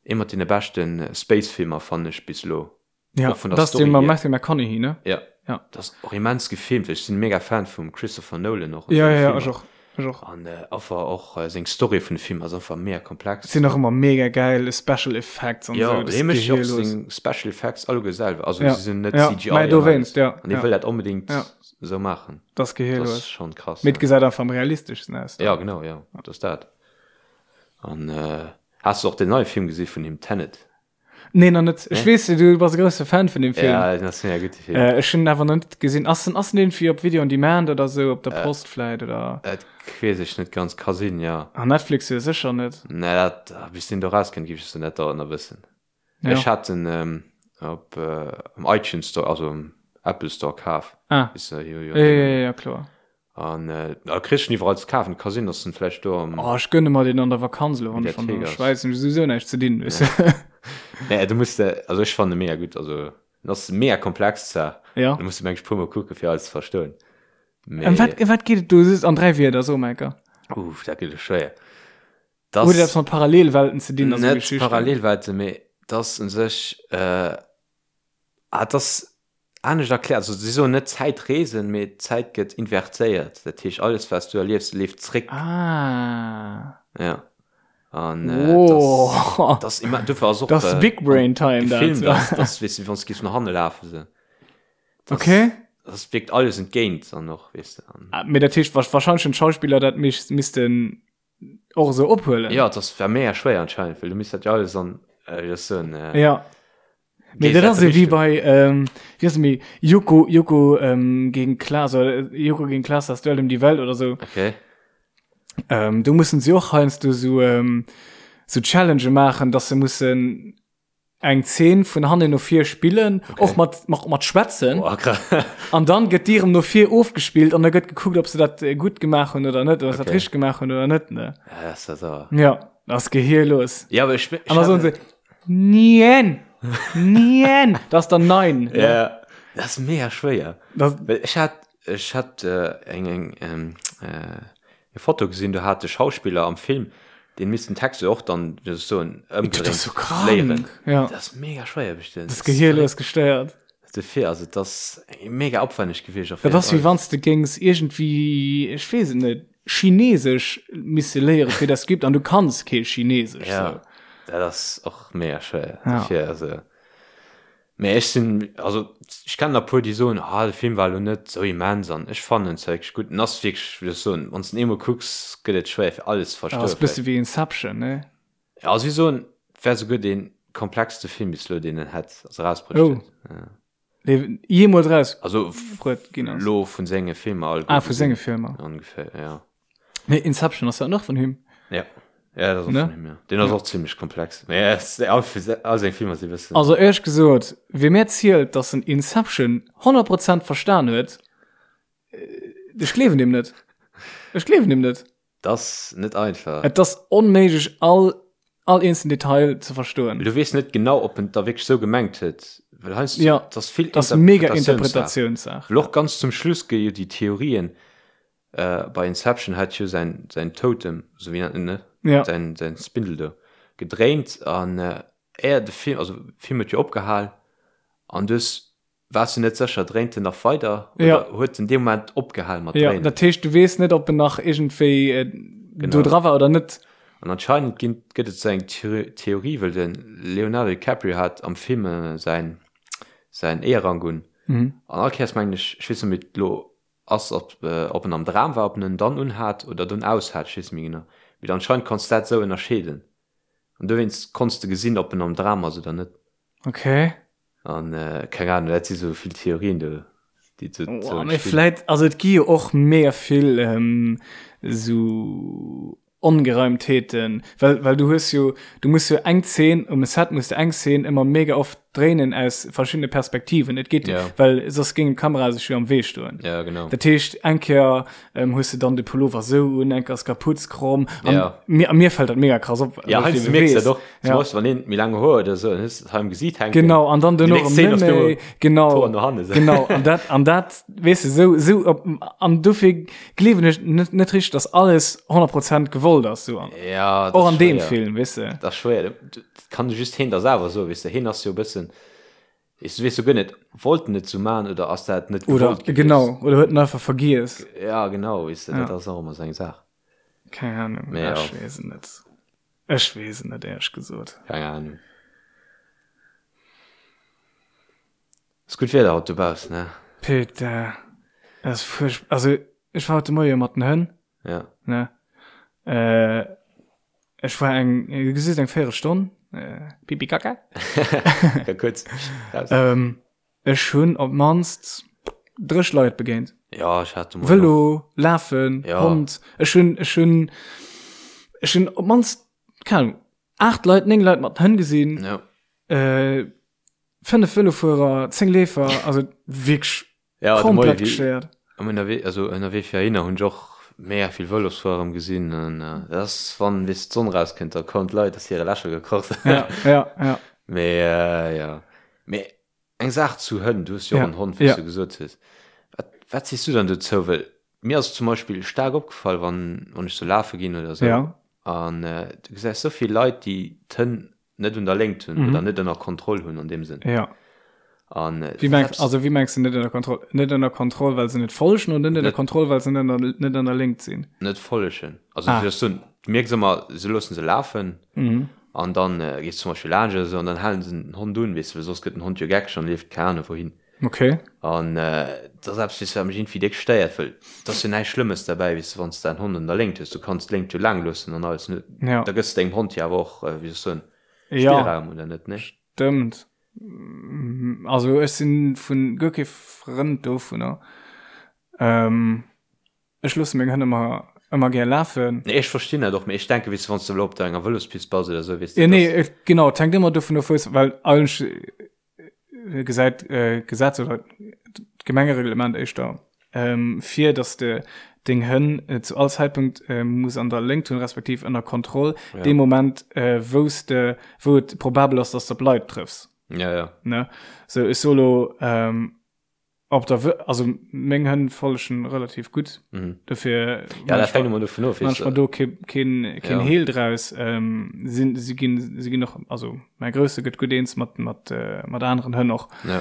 ee mat deene beschten Space-Filmer fannen ech bis elo. Ja, Och vun der das Story den mam hier. Matthew McConaughey, ne? Ja. Ja. Dat ass och immens gefilmt. Ech sinn mega Fan vum Christopher Nolan och. Ja, ja, ja, ech och. Ech och. An äh, einfach och äh, seng Story vun de Film ass einfach mega komplex. Sinn och ëmmer mega geil Special Effects an ja, sou. Ja, mécht och seng Special Effects alleguer selwer. Also ja. se sinn net ja. CGI. Mä dowéinst, ja. An hie ja. wëll dat onbedéngt ja. sou maachen. Dat ass gehirlos. Dat ass schon krass. Mee et gesäit einfach am realisteschsten aus. Ja, genau, ja. Dat ass dat. An äh, has du och den neie Film gesi vun him, Tenet? Nee, nach net. Ech weess, du bass e grousse Fan vun dem Film. Ja, dat ass mega gutt, de Film. Äh, ech hunn en awer nach net gesinn. Ass en, ass en irgendwie op Video on Demand oder sou, op der Post vläit, oder? Dat weess ech net ganz, ka sinn, ja. Ah, Netflix jo sécher net. Nee, dat, bis deen do rauskënnt, géif ech se net dauernd nach wëssen. Ja. Ech hat en ähm, op äh, am iTunes Store, also am Apple Store kaf. Ah. Ist, äh, jo, jo, Ja, ja, ja, ja, kloer. An äh, da kriss du en iwwerall ze kafen. Ka sinn, dass en vläicht do am. Oh, ech gönne mer deen an der Vakanz elo, wann ech an Mediathek der ass. Schwäiz hunn ech souwisou näischt ze dinn, weess de. Nee, du muss de, also ech fannen e mega gutt. Also en ass mega komplex zwar. Ja. Du muss de mengen ech puer mol kucke fir alles ze verstoen. Mee. Ëm wat, ëm wat geet et do just an 3 Wierder, so mol enker. Uff, dat gëtt elo schwéier. Huet et eppes mat Parallelwelten ze dinn a sou Net Geschichten? Parallelwelten, mee 't ass un sech, äh, ah, 't ass anescht erkläert. Also si soen net Zäitreesen, mee d'Zäit gëtt invertéiert. Dat heescht, alles wat s du erliefs, leeft zréck. Ah. Ja. An äh, Wow. das, das immer, dofir ass och Das äh, Big Brain Time dat. gefilmt, dass, dass, weess du, wann s du giffs no hanne lafen, sou. Das, Okay. Das wierkt alles entgéint dann och, weess du. An, Ah, Mee dat heescht, wahrscheinlech hunn d'Schauspiller dat missten och esou ophuelen. Ja, das war mega schwéier anscheinend, well du misst dat jo alles an, äh, wéi soll ech soen, äh, Ja. Mee dat ass ewéi bei, ähm, wéi ass et méi, Joko, Joko ähm, gegen Klaas oder Joko gegen Klaas, das Duell um die Welt oder sou. Okay. Ähm, do mussen si och heiansdo sou, ähm, sou Challengë maachen, dass se mussen eng Zeen vun hannen no vir spillen, Okay. och mat, mat, mat schwätzen. Boah, krass. An dann gëtt déi erëm no vir ofgespillt an da gëtt gekuckt, ob se dat äh, gutt gemaach hunn oder net, oder se dat Okay. richteg gemaach hunn oder net, ne? Ja, das ist ja sauer. Ja, das ass gehirlos. Ja, aber ich, ich An da soen se, Nien! Nien! Das ass dann nein. Ne? Ja, das ist mega schwéier. Das, Well ech hat, ech hat äh, eng, eng, ähm, äh, eng Foto gesinn, do hat de Schauspiller am Film deen misst den Text jo och dann, wéi soll ech soen, dat ass ëmgedréint so krank. léieren. Ja. Dat ass mega schwéier bestimmt. Das gehirlos gestéiert. Dofir, also dat ass mega opwänneg gewiescht. Dat ass wéi wann s de géings iergendwéi, ech weess et net, Chinesesch misse léiere fir dat Skript an du kanns kee Chinesesch. Ja, sou. dat ass och mega schwéier. Ja. Dofir, also. Mee ech sinn, also ech kennen der puer déi soen, ah de Film war elo net sou immens an ech fannen en zwar wierklech gutt. En ass wierklech, wéi soll ech soen, wann s de en eemol kucks, gëtt et schwéier fir alles ze Dat verstoen ass bësse vläicht. wéi Inception, ne? Ja, si soen, et wär souguer dee komplexste Film bis elo, deen en hätt, also erausbruecht Oh. huet. Ja. Dee jeemools eraus Also bruet ginn ass. elo vun senge Filmer alleguer Ah, vu gesinn, senge Filmer. ongeféier, ja. Mee Inception ass dat och vun him? Ja. Ja, dat ass och Ne? vun him, ja. Deen ass och zimmlech komplex. Mee ja, es- all, all seng Filmer si bëssen. Also éierlech gesot, wie mir zielt, dass en Inception 100 Prozent verstan huet, ech gleewen deem net. Ech gleewen deem net. Dat ass net einfach. Et ass onméiglech all all eenzelnen Detail ze verstoen. Well du weess net genau, ob en et da wierklech sou gemengt huet. Well heiansdo, Ja, et ass vill dat ass mega Interpretatiounssaach. Interpretatiounssaach. Well och ganz zum Schluss gi jo déi Theorien, bei Inception hat jo säin säin Totem, sou wéi nennt en ne? Ja. Säin säin Spindel do gedréint an éier de Film, also Film huet jo opgehal an du hues Waars du net sécher, dréint en nach weider oder Ja. huet en dee Moment opgehal mat Ja, dréinen? dat heescht, du weess net, ob en nach iergendwéi äh, Genau. do dra war oder net. An anscheinend ginn, gëtt et sou eng Theorie, well de Leonardo DiCaprio hat am Film äh, säin, säin Eeërrank un. Mhm. An all Kéiers mengen ech, ech weess net méi, wéi et elo ass, ob, äh, ob en am Dram war, ob en en dann unhat oder dunn aus hat, ech weess net méi genau. Mee anscheinend konns du dat sou ënnerscheeden. An dowéinst konns de gesinn, ob en am Dram ass oder net. Okay. An keng Ahnung, dat si sou vill Theorien do, déi do oh, mee vläit, also et gi jo och mega vill ähm, sou Ongereimtheeten, well, well du hues jo, du muss jo eng Zeen, um Set muss du eng Zeen ëmmer mega oft dréinen aus verschiddene Perspektiven. Et geet, Ja. well soss géing d'Kamera sech jo am Wee stoen. Ja, genau. Dat heescht, eng Kéier ähm, hues du dann de Pullover sou un, eng Kéier ass d'Kaputz kromm. An Ja. mir, a mir fällt dat mega krass op. Ja, well ich heiansdo eben mierks du weess. dat och. Zum Ja. Beispill, wann een méi laang Hoer huet oder sou, dann hues du et hei am Gesiit hänken. Genau, an dann Déi duerno nächst erëm Szene net ass du méi. Genau. d'Hoer no hanne sou. Genau, an dat, an dat, weess du, sou, sou, op, an dofir gleewen ech net, net richteg, dass alles 100 Prozent gewollt ass, sou an, Ja, dat och ass an deem schwéier. Film, weess du. Dat ass schwéier. Dat kann just heen da selwer soen, weess du. Heen ass jo e bëssen. Weess du weess jo guer net, wollt en et sou man oder ass dat net Oder gewollt gewiescht? genau, oder huet en einfach vergiess. Ja, genau, weess de, Ja. dat ass och ëmmer sou eng Saach. Keng Ahnung, Mee ja. ech weess et net. Ech weess et net, éierlech gesot. Keng Ahnung. Ass gutt Wieder haut dobaussen, ne? Peter, et ass fuercht, also ech war haut de Moie mat den Hënn, Ja. ne? Äh, ech war eng, du gesiss, eng Véierelstonn, äh, Pipi Kaka. Ja, kuerz raus. Ähm, ech hunn op d'mannst 30 Leit begéint. Ja, ech hat de Moien och. Vëlo, Lafen, Ja. Hond. Ech hunn, ech hunn, ech hunn op d'mannst, keng Ahnung, 8 Leit, 9 Leit mat Hënn gesinn. Ja. Äh, 5 Vëlofuerer, 10 Leefer, also wierklech Ja, de komplett Moie, wéi- gestéiert. Am ënnerwee, also ënnerwee fir heihinner hunn ech och mega vill Vëlosfuerer erëm gesinn an dat ass wann weess d'Sonn rauskënnt, da kommen d'Leit aus hire Lächer gekroch. Ja, ja, ja. Mee ja. Mee eng Saach zu Hënn, du hues jo och Ja, en Hond, wéi s ja. du gesot hues. Wat, wat sees du dann dozou? Well mir ass zum Beispill staark opgefall, wann, wann ech sou lafe ginn oder sou Ja. an du gesäis sou vill Leit, déi d'Hënn net un der Léngt hunn oder net ënner Kontroll hunn an deem Sënn. Ja. An äh, Wie mengst, also wie mengst du net ënner Kontroll? Net ënner Kontroll, well se net follegen oder net ënner Kontroll, well se net ënner, net an der Léngt sinn? Net follegen. Also ah. du, du mierks ëmmer, se loossen se lafen mhm. an dann äh, gees zum Beispiel laanscht oder so an dann halen se den Hond un, weess du, well soss gëtt den Hond jo geckeg an leeft keine Ahnung wohin. Okay. An äh, dat ass eppes, weess du, wat mech irgendwie déck stéiert, well et ass jo näischt Schlëmmes derbäi, weess du, wann s de däin Hond an der Léngt hues, du kanns d'Léngt jo laang loossen an alles, ne? Ja. Da gëss de dengem Hond jo awer och, äh, wéi soll ech soen, Ja. Spillraum, oder net, ne? Stëmmt. Also ech sinn vun guer kee Frënd dovunner. Ähm, Ech loosse meng Hënn ëmmer, ëmmer gär lafen. Nee, ech verstinn dat och, mee ech denken, weess de, wann s de elo op der enger Vëlospist bass oder esou, weess de, Ja, nee, dass. et, genau, et hänkt ëmmer dovun of, wou s, well eigentlech gesäit d'Gesetz oder d'Gemengereglement éischter vir, dass de deng Hënn zu all Zäitpunkt muss an der Léngt hunn, respektiv ënner Kontroll, Ja. dee Moment, wou s de, wou et probabel ass, dass de op Leit trëffs. Ja, ja. Ne? Sou, ech soe lo, Op der Wë also meng Hënn follegen relativ gutt. Mhm. Dofir Ja, dat hänkt ëmmer dovun of, manch mer do kee keen keen Ja. Heel draus. Ähm, sinn si ginn si ginn och also mäi Grousse gëtt gutt eens mat mat äh, mat aneren Hënn och. Ja.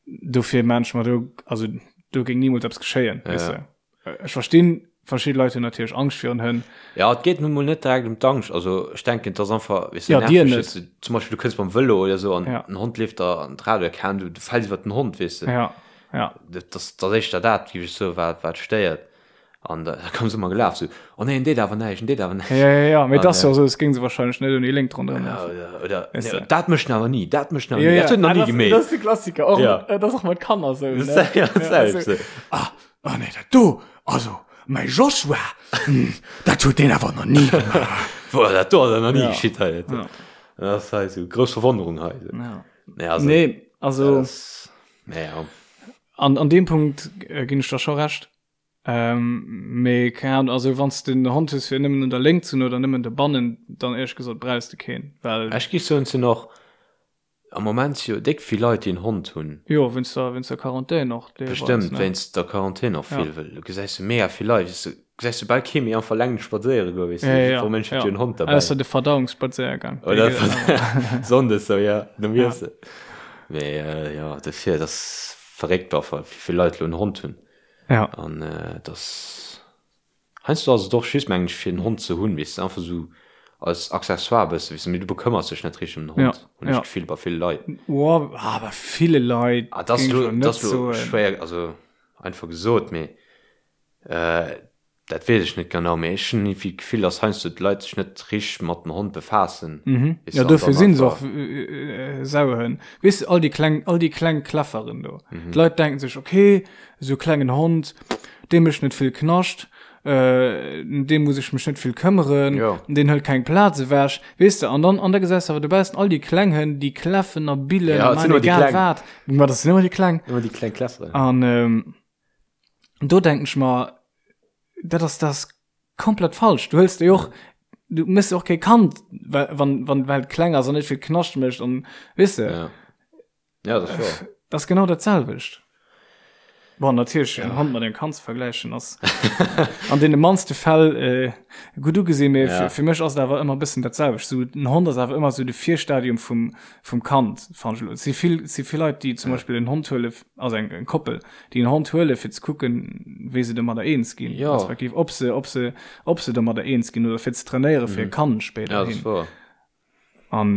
Dofir manch mer do also do géing nimools eppes geschéien, Ja, weess ja. de. Ech verstinn, verschidde Leit hunn natierlech Angscht virun Hënn. Ja, et geet nun mol net direkt ëm d'Angscht. Also ech denken, et ass einfach, weess du, Ja, dir nerveg, net. weess du, zum Beispill du kënns mam Vëlo oder esou an Ja. en Hond leeft der an d'Rad oder keng Ahnung, du, du fäls iwwer den Hond, weess de. Ja, ja. Dat ass, dat ass éischter dat, géif ech soen, wat, wat stéiert. An da, da komme se ëmmer gelaf, sou, oh nee, en deet awer näischt, en deet awer näischt. Ja, ja, ja, mee et An, ass jo esou, es géing se wahrscheinlech net ouni Léngt ronderëm Ja, lafen. oder, oder Weess nee, de. dat mécht en awer ni, dat mécht en awer Ja, ni, ja. dat huet en nach Ah, ni das, gemeet. das ist de Klassiker. Och, Ja. dat ass och mat Kanner sou, ne? Ja, dat Ja, selwecht, sou. sou. Ah, Oh nee, dat do, also mäi Joshua, dat huet deen awer nach ni gemaach. Boah, dat do ass nach ni Ja. geschitt hei. Ja. Dat ass hei sou grouss Verwonnerung hei. Ja. Nee, also, Nee, also dat ass, nee, ja. an, an deem Punkt äh, ginn ech der scho recht. Ähm, mee keng Ahnung, also wann s de en Hond hues fir nëmmen un der Léngt ze hunn oder nëmmen dobannen, dann éierlech gesot brauchs de keen, well Ech géif soen, et sinn och Am Moment si jo déck vill Leit, déi en Hond hunn. Jo, wéinst der, wéinst der Quarantän och deelweis, Bestëmmt ne? wéinst der Quarantän och Ja. vill, well do gesäis du mega vill Leit, weess du, gesäis du bal kee méi einfach eleng spadséiere goen, weess du, Ja, ja, jiddwer Mënsch huet ja. jo en Hond derbäi. Ausser de Verdauungsspadséiergang, dee Oder geet awer. Sonndes sou, ja, nom Ja. Iessen. Mee jo, dofir, et ass verréckt einfach, wéi vill Leit elo en Hond hunn. Ja. An et ass. Heiansdo ass et och just, mengen ech, fir en Hond ze hunn, weess de, einfach esou als Accessoire e bësse, weess de, mee du bekëmmers dech net richteg ëm den Ja, Hond, hunn ech ja. d'Gefill, bei ville Leit. Oh, ah, bei ville Leit Ah, dat ass géing ech elo, lo dat net ass elo soen. schwéier, also einfach gesot, mee dat weess ech net genau, mee ech hunn iergendwéi d'Gefill, dass heiansdo d'Leit sech net richteg mat dem Hond befaassen, Mhm. weess Ja, de, an dofir dann sinn se och einfach. Sauhënn. Weess de, all déi kleng, all déi kleng Kläfferen do. Mhm. D'Leit denken sech, okay, esou klengen Hond, dee mécht net vill Knascht, ëm dee muss ech mech net vill këmmeren, Jo. deen hëlt keng Plaz ewech, weess de. An dann, an da gesäis de awer dobaussen all déi kleng Hënn, déi kläffen a billen Ja, a et sinn maachen ëmmer déi egal kleng. wat. Ma dat sinn ëmmer déi kleng. Ëmmer déi kleng Kläfferen. An do denken ech mer, dat ass, dat ass komplett falsch. Du hëls déi och, du méchs och kee Kand, well, wann, wann, well et kleng ass an net vill Knascht mécht an, weess de. Ja. Ja, dat ass wahr. Dat ass genau dat selwecht. Bon, natierlech en Hond mat engem Kand ze vergläichen ass an deene mannste Fäll äh, gutt ugesinn, mee ja. fir, fir mech ass et awer ëmmer e bëssen dat selwecht. So, en Hond ass awer ëmmer sou de Virstadium vum, vum Kand, fannen ech elo. Et si vill, si vill Leit, déi zum ja. Beispill en Hond huele, also eng, eng Koppel, déi en Hond huele fir ze kucken, wéi se domadder eens ginn, ja. respektiv ob se, ob se, ob se domadder eens ginn oder fir ze trainéiere fir mhm. e Kand spéider ja, hin. An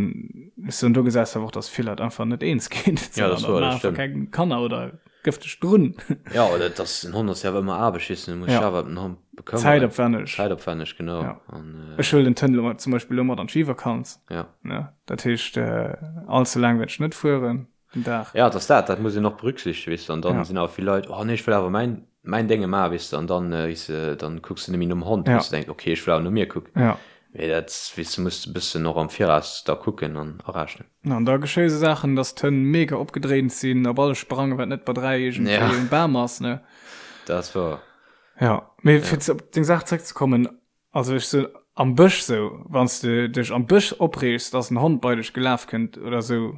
ech soen, do gesäis de awer och, dass vill Leit einfach net eens ginn. Ja, dat ass wouer, dat stemmt. Keng Kanner oder gëff dech drun. Ja, oder dass en Hond ass jo awer ëmmer Aarbecht, weess de, du muss dech Ja. awer ëm den Hond bekëmmeren. Zäitopwänneg. Zäitopwänneg, genau. Ja. An, Ech huelen den Tënn elo zum Beispill elo mat an d'Skivakanz. Ja. Ne, dat heescht, all ze laang wäert ech net fueren den Dag. Ja, et ass dat, dat muss een och berücksichtegen, weess de, an dann Ja. sinn awer vill Leit, oh nee, ech wëll awer mäin, mäin Dénge maachen, weess de, an dann, weess de, dann kucks de net méi nom Hond, Ja. weess de, denks, okay, ech wëll awer no mir kucken. Ja. Mee dat, weess de, muss de bëssen och am Viraus da kucken an arechnen. An da geschéie sou Saachen, dass d'Hënn mega opgedréint sinn, op alles sprangen, wat net bei 3 iergendwéi Ja. um Bam ass, ne? Dat ass wouer. Ja, mee fir op deng Saach zréckzekommen, Also ech sou am Bësch sou, wann s de dech am Bësch opreegs, dass en Hond bei dech gelaf kënnt oder sou,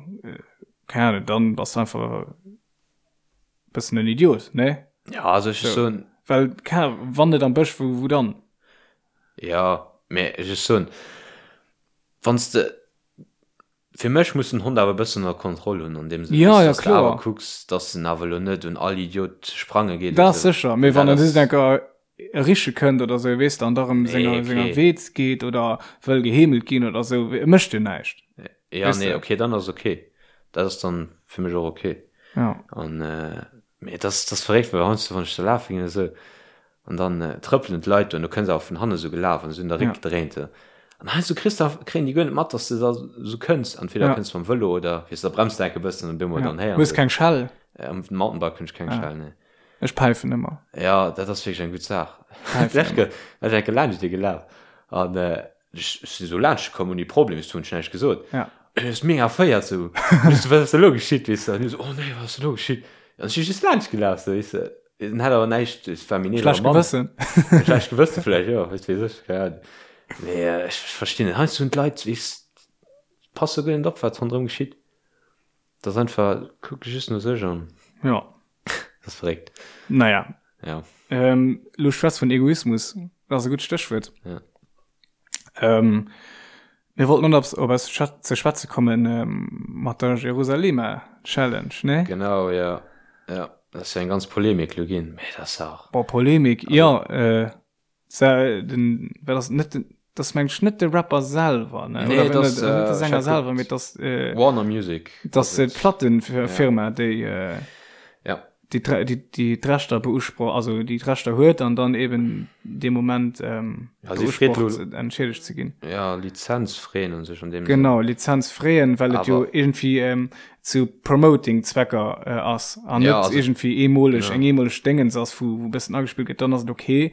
keng Ahnung, dann bass de einfach e bëssen en Idiot, ne? Ja, also ech So. soen, Well, keng Ahnung, wann net am Bësch, wou, wou dann? ja, mee ech soen, wann s de, fir mech muss den Hond awer e bëssen ënner Kontroll hunn, an deem Sënn, Ja, weess, ja, dass de awer kloer. kucks, dass en awer elo net un all Idiot sprange geet oder Dat ass sou. sécher, mee Well wann dat en just ass. enker riche kënnt oder sou, weess de, an da rëm Nee, senger, senger okay. Wee geet oder wëll geheemelt ginn oder sou, e mécht jo näischt. Ja, Weess nee, de? okay, dann ass okay. Dat ass dann fir mech och okay. Ja. An, äh, mee dat ass, dat ass verréckt, well heiansdo, wann ech da lafe ginn oder sou, an dann äh, trëppelen d'Leit do an du kënns awer vun hanne sou gelaf an se hunn der Ja. Réck gedréint, sou. An heiansdo kriss de, kréien déi guer net mat, dass de da sou kënns. Entweder Ja. kënns mam Vëlo oder, weess de, da bremst de enke bëssen an domat Ja. dann héieren Hues se. keng Schell? Äh, am Mountainbike hunn ech keng Ah. Schell, nee. Ech päifen ëmmer. Ja, dat ass wierklech eng gutt Saach. Päifen ëmmer. Ech enke laanscht dir gelaf an ech sinn esou laanscht komm ouni Problem, ech hunn näischt gesot. Ja. An ech mega erféiert sou, ech sou, wat ass elo geschitt, weess de? An hie sou, oh nee, wat ass elo geschitt? An ech si just laanscht gelaf sou, weess de. En hat awer näischt, et war méi Schlecht Mann. Gewëssen. Schlecht Gewësse vläicht, jo, wat weess ech, keng Ahnung. Mee ech verstinn net, heiansdo hunn d'Leit, weess, passe guer net op, wat ronderëm geschitt. Dat ass einfach, kucke just no sech an. Ja. Dat ass verréckt. Naja. Ja. Ähm, lo schwätz vun Egoismus. Dat ass e gutt Stéchwuert. Ja. Ähm, mir wollten op, op eis ze schwätze kommen ähm, mat der Jerusalema Challenge, ne? Genau, ja. Ja, dat ass jo eng ganz Polemik lo ginn. Mee dat ass auch. Boah, Polemik, also, ja, äh, Sa, den, wat ass net den, das meng ech net de Rapper selwer, ne? Nee, Oder das, net, äh, net de äh, Sänger ich hab selwer, guckt. mee das, äh, Warner Music. das ass et. d'Plattenfirma, déi, äh, Ja. déi, d'Re- déi, déi d'Rechter beusproch, also déi d'Rechter huet an dann eben dee Moment ähm, Ja, si freet beusprocht, lo- entschädigt ze ginn. Ja, Lizenz freeën un sech an deem Genau, Lizenz freeën, well et jo Awer- irgendwie ähm, zu Promoting-Zwecker äh, ass an Ja, net also- irgendwie eemoleg, Ja. eng eemoleg Déngens ass, wou, wou e bëssen agespillt gëtt, dann ass et okay.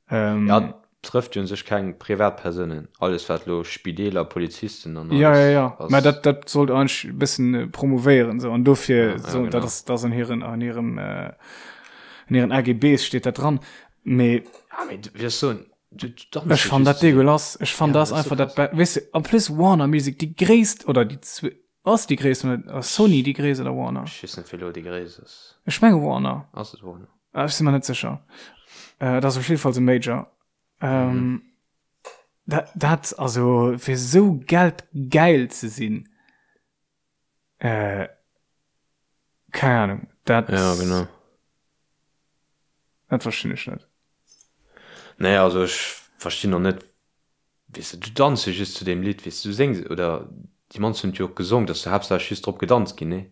Ähm, Ja, trëfft jo un sech keng Privatpersounen. Alles wat lo Spideeler, Polizisten an alles ja, ja, ja. ass. Mä dat, dat sollt eigentlech e bëssen äh, promovéieren, sou. An dofir, Ja, ja, so, dat genau. ass, dat ass an hiren, an hirem, äh, an hiren AGBs steet dat dran. Mee Ja, mee du wirst soen, du, du danzt ech jo fann dat just. dégueulasse. Ech fann Ja, dat dat ass einfach so dat, krass. be weess de, en plus Warner Music, déi gréisst, oder déi zwe, ass déi gréisst, oder ass Sony déi gréisst oder Warner? Ech weess net, wéi lo déi gréisst ass. Ech menge Warner. Ass et Warner? Ah, ech si mer net sécher. Äh, dat ass op jidde Fall e Major. Ähm, mhm. dat, dat, also, fir sou geldgeil ze sinn, äh, keng Ahnung, dat, Ja, genau. dat verstinn ech net. Nee, also ech verstinn och net, weess de, du danz jo just zu deem Lidd, weess de, du séngs, oder déi mannst hunn et jo och gesong, dass du haaptsächlech just drop gedanzt ginn, nee?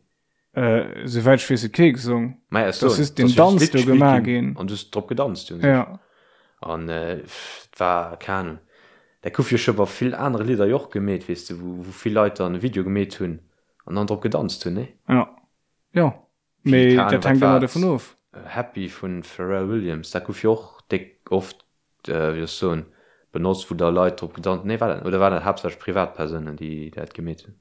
Äh, souwäit ech weess huet kee gesong. Maja, ech Das soen, ist den dass just Danz d'Lidd do gespillt gemaach ginn ginn. an du hues drop gedanzt un sech. Ja. An äh, et war, keng Ahnung, dat gouf jo scho bei vill anere Lidder jo och gemeet, weess de, wou, wou vill Leit dann e Video gemeet hunn an dann drop gedanzt hunn, nee? Ja. Ja. Wéi, Mee keng Ahnung, dat wat hänkt war ëmmer et, dovun of. Happy vun Pharrell Williams, dat gouf jo och déck oft, wéi soll ech soen, benotzt, wou da Leit drop gedanzt, nee, war dat, oder waren dat haaptsächlech Privatpersounen, déi dat gemeet hunn?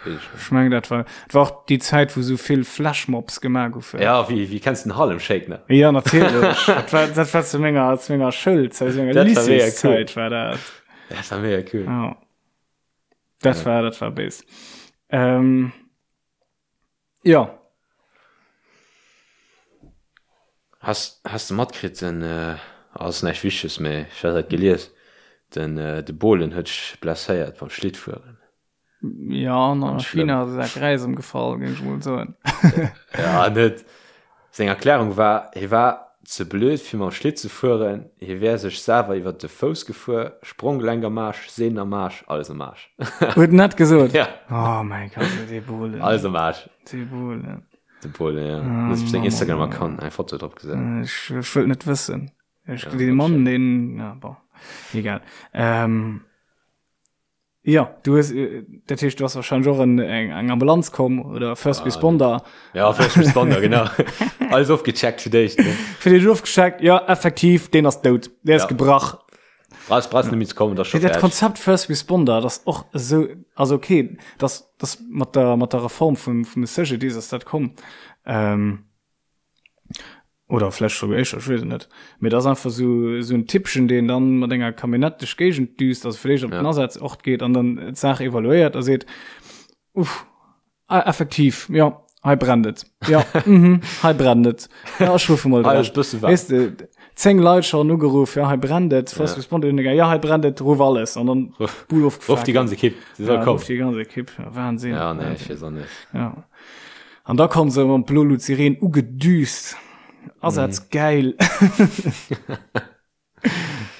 Ech mengen dat war et war och déi Zäit wou sou vill Flashmobs gemaach goufen. Ja wéi wéi kenns den Harlem Shake nach? Ja natierlech dat war dat war zu menger zu menger Schoulzäit zu menger Dat war mega cool. Lycéeszäit war dat. Dat war mega cool. Ja. Dat Ja. war dat war béis. Ähm, ja. Has has de matkritt den ass näischt Wichteges mee ech hat dat gelies den de Bohlen huet sech blesséiert beim Schlittfueren. Ja an a China ass e Sak Räis ëmgefall géing ech mol soen. Ja en huet seng Erklärung war hie war ze blöd fir mam Schlitt ze fueren, hie wär sech selwer iwwert de Fouss gefuer, Spronggelenk am Aarsch, Sehnen am Aarsch, alles am Aarsch. Huet en dat gesot? Ja. Oh mäi Gott, dee Bohlen. Alles am Aarsch. Dee Bohlen. De Paul, ja. Ah, Huet op seng Instagram-Account eng Foto drop gesat. Ech, ech wëllt net wëssen. Ech, ja, dee Mann, deen, ja, bon, egal. Ähm, ja, du hues, äh, dat heescht, du hast wahrscheinlich och en, eng, eng Ambulanz komm oder First ah, Responder. Ja, First Responder, genau. Alles ofgecheckt fir d'éischt. Ne? Fir d'éischt ofgecheckt, ja, effektiv, deen ass dout. Dee ass ja. gebrach. Brauchst, brauchst net méi ze kommen, dat ass scho Dat fäerdeg. Konzept First Responder, dat ass och esou, also okay, dat ass mat der, mat der Reform vum, vum CGDIS ass dat komm, ähm, oder vläch souguer éischter, ech weess et net, mee dat ass einfach esou, esou en Typpchen, deen dann mat enger Camionnette duerch d'Géigend düst, also fir d'éischt op den Ja. Asazort geet an dann d'Saach evaluéiert a seet, Uff, Ah, effektiv, jo, hei brennt et. Jo, mhm, hei brennt et. Ja, ech ruffe mol Hei ass bësse waarm. Weess de, 10 Leit schonn ugeruff, ja, hei brennt et. First Ja. Responder hunn gegangen, ja, hei brennt et, ruff alles. An dann Ruff, Bull ruff ofgefaakt. déi ganz Ekipp, se soll Ja, kommen. ruff déi ganz Ekipp. Ja, Wahnsinn. Ja, nee, ech Wahnsinn. weess och net. Ja. An da kommen se mam Blolut-Sireen ugedüst. Asaz Mhm. geil.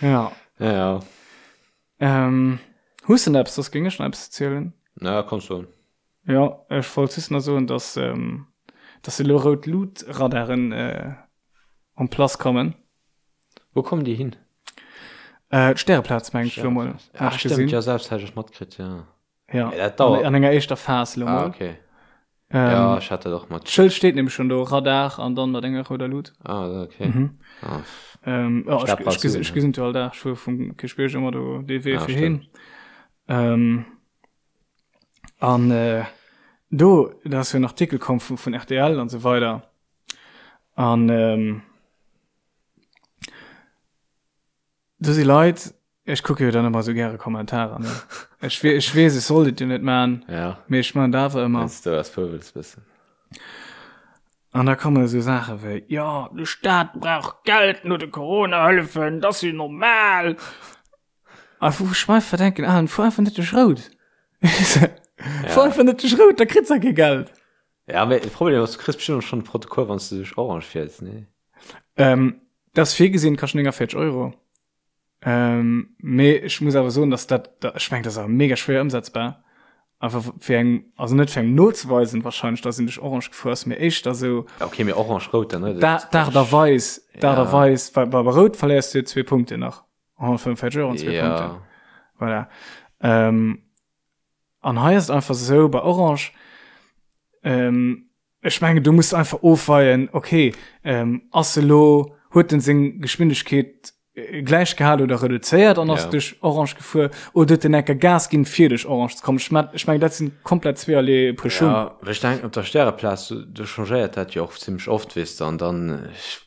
Ja. Ja, ja. Ähm, hues de nach eppes? Soss géing ech nach eppes erzielen. Na, komm schon. Jo, ech wollt just nach soen, dass, ähm, dass elo rout Lut-Radaren äh, en place kommen. Wou kommen déi hin? Äh, d'Stäreplaz, meng ech elo mol. Ah, Hat ech stimmt, gesinn. ja, selbst hat ech matkritt, ja. Ja, Ja, dat dauert. an, an enger éischter Phas elo Ah, mol. okay. Ähm, Ja, ech hat dat och mat. D'Schëld steet nämlech schon do, Radar an dann mat enger rouder Lut. Ah, okay. Mhm. Ah, Ähm, ja, ech, Stadtpark ech, ges- Süden, ech ja. gesinn jo all Dag, ech fuer vum Kierchbierg ëmmer do dee Wee Ah, fir stimmt. hin. Ähm, an äh, do, da ass jo en Artikel komm vun, vun RTL an sou weider. An ähm, do si Leit, ech kucke jo dann ëmmer sou gäre Kommentarer, ne? Ech, we ech weess, ech sollt et jo net man, Ja, mee ech man et awer ëmmer. wenn's du ass pöbels bëssen. An da komme sou Saache wéi, jo, de Staat brauch Geld no de Corona-Hëllefen, dat ass jo normal. A wou ech mer einfach denken, Alan, fuer einfach net duerch Rout. Fuer einfach net duerch Rout, da kritt se kee Geld. Ja, mee de Problem ass, du kriss bestimmt och schon e Protokoll, wann s du duerch Orange fiers, nee? Ähm, dat ass virgesinn, kascht 49 Euro. Ähm, mee ech muss awer soen, dass dat, dat ech meng, dat ass awer mega schwéier ëmsetzbar. Einfach fir eng, also net fir engem nozeweisen wahrscheinlech, dass een duerch Orange gefuer ass, mee éischter sou. Ja, okay, mee Orange, Rout dann, ne? Da, d'Aart a Weis, d'Aart a Weis, well bei Rout verléiers du jo zwee Punkten nach. 145 Euro an zwee ja. Punkten. Voilà. Ähm, an hei ist einfach so bei Orange, ähm, ech menge du musst einfach ofweien, okay, ähm, ass elo, huet den seng Geschwindigkeet äh, gleich gehal oder reduzéiert an ass Ja. duerch Orange gefuer oder huet den enker Gas ginn fir duerch Orange ze kommen. Ech mein, ech meng dat sinn komplett zweeërlee Puer Schung. Ja, well ech denken op der Stäreplaz, du, du changéiert dat jo och zimmlech oft, weess de, an dann, ech,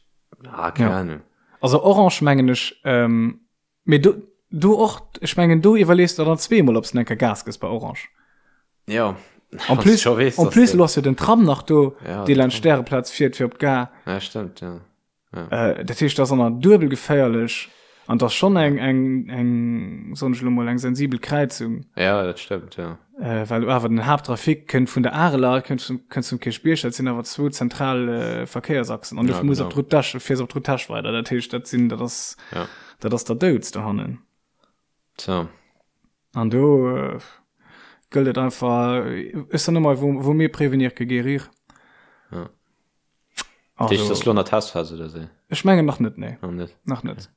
ah, keng Ja. Ahnung. Also Orange mengen ech, ähm, mee do, do och, ech mengen do iwwerlees de dann zweemol, ob s de enker Gas gëss bei Orange. Ja. En plus, scho weess, en plus lo ass jo den Tram nach do, Ja, dee den laanscht Stäreplaz fiert fir op d'Gare. Ja, stimmt, ja. Äh, dat heescht, dat ass dann duebel geféierlech an dat ass schonn eng, eng, eng, soen ech elo mol, eng sensibel Kräizung. Ja, dat stimmt, ja. Äh, well awer den Haapttrafic kënnt vun der Areler, kënnt vum, kënnt vum Kierchbierg, dat sinn awer zwou zentral äh, Verkéiersachsen. An du Ja, muss op genau. d'Route d'Esch, fiers op d'Route d'Esch weider. Dat heescht, dat sinn, dat ass, Ja. dat ass der Douds dohannen. Tja. An do äh, gëllt et einfach, ech soen ëmmer, vaut, vaut mieux prévenir que guérir. Ja. Dat heescht, Also, das ass lo an der Testphase oder sou? ech mengen nach net, nee. Nach net. Nach net.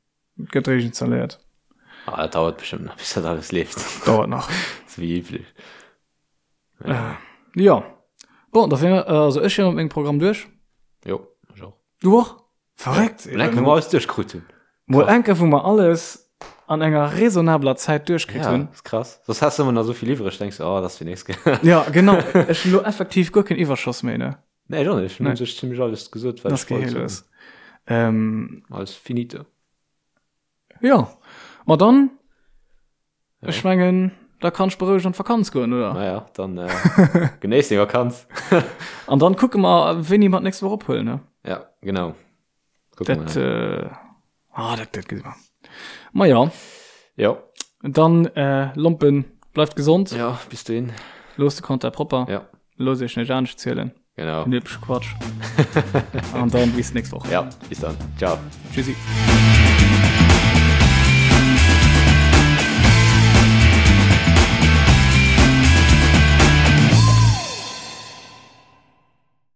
Gëtt réischt installéiert. Ah, dat dauert bestimmt nach, bis dat alles leeft. Dauert nach. Sou wéi üblech. Äh, jo. Bon, da wier, also ech wier mat mengem Programm duerch. Jo, ech och. Du och? Verréckt! Mol enke, wou mer alles duerchkrut hunn. Mol enke, wou mer alles an enger raisonnabeler Zäit duerchkritt Ja, hunn. ass krass. Soss has du ëmmer nach esou vill iwwreg, denks du, oh, dat ass fir nächst Kéier. Ja, genau. Ech hunn elo effektiv guer keen Iwwerschoss méi, ne? Nee, ech och net. Ech hunn Nee. u sech zimmlech alles gesot, wat Das ech wollt gehéiert soen. es. Ähm, Alles finito. ja. Ma dann, Ja. ech mengen, da kann ech berouegt an d'Vakanz goen, oder? Naja, dann äh, genéiss deng Vakanz. An dann kucke mer, wéini mer d'nächst Woch ophuelen, ne? Ja, genau. Dat, äh, ah, dat, dat gesi mer. Ma ja. Ja. Dann, äh, Lompen, bleift gesond. Ja, bis dohin. Loosst de Konter propper. Ja. Loosst iech net anescht zielen. Genau. Den übleche Quatsch. An dann bis nächst Woch. Ja, bis dann. Ciao. Tschüssi.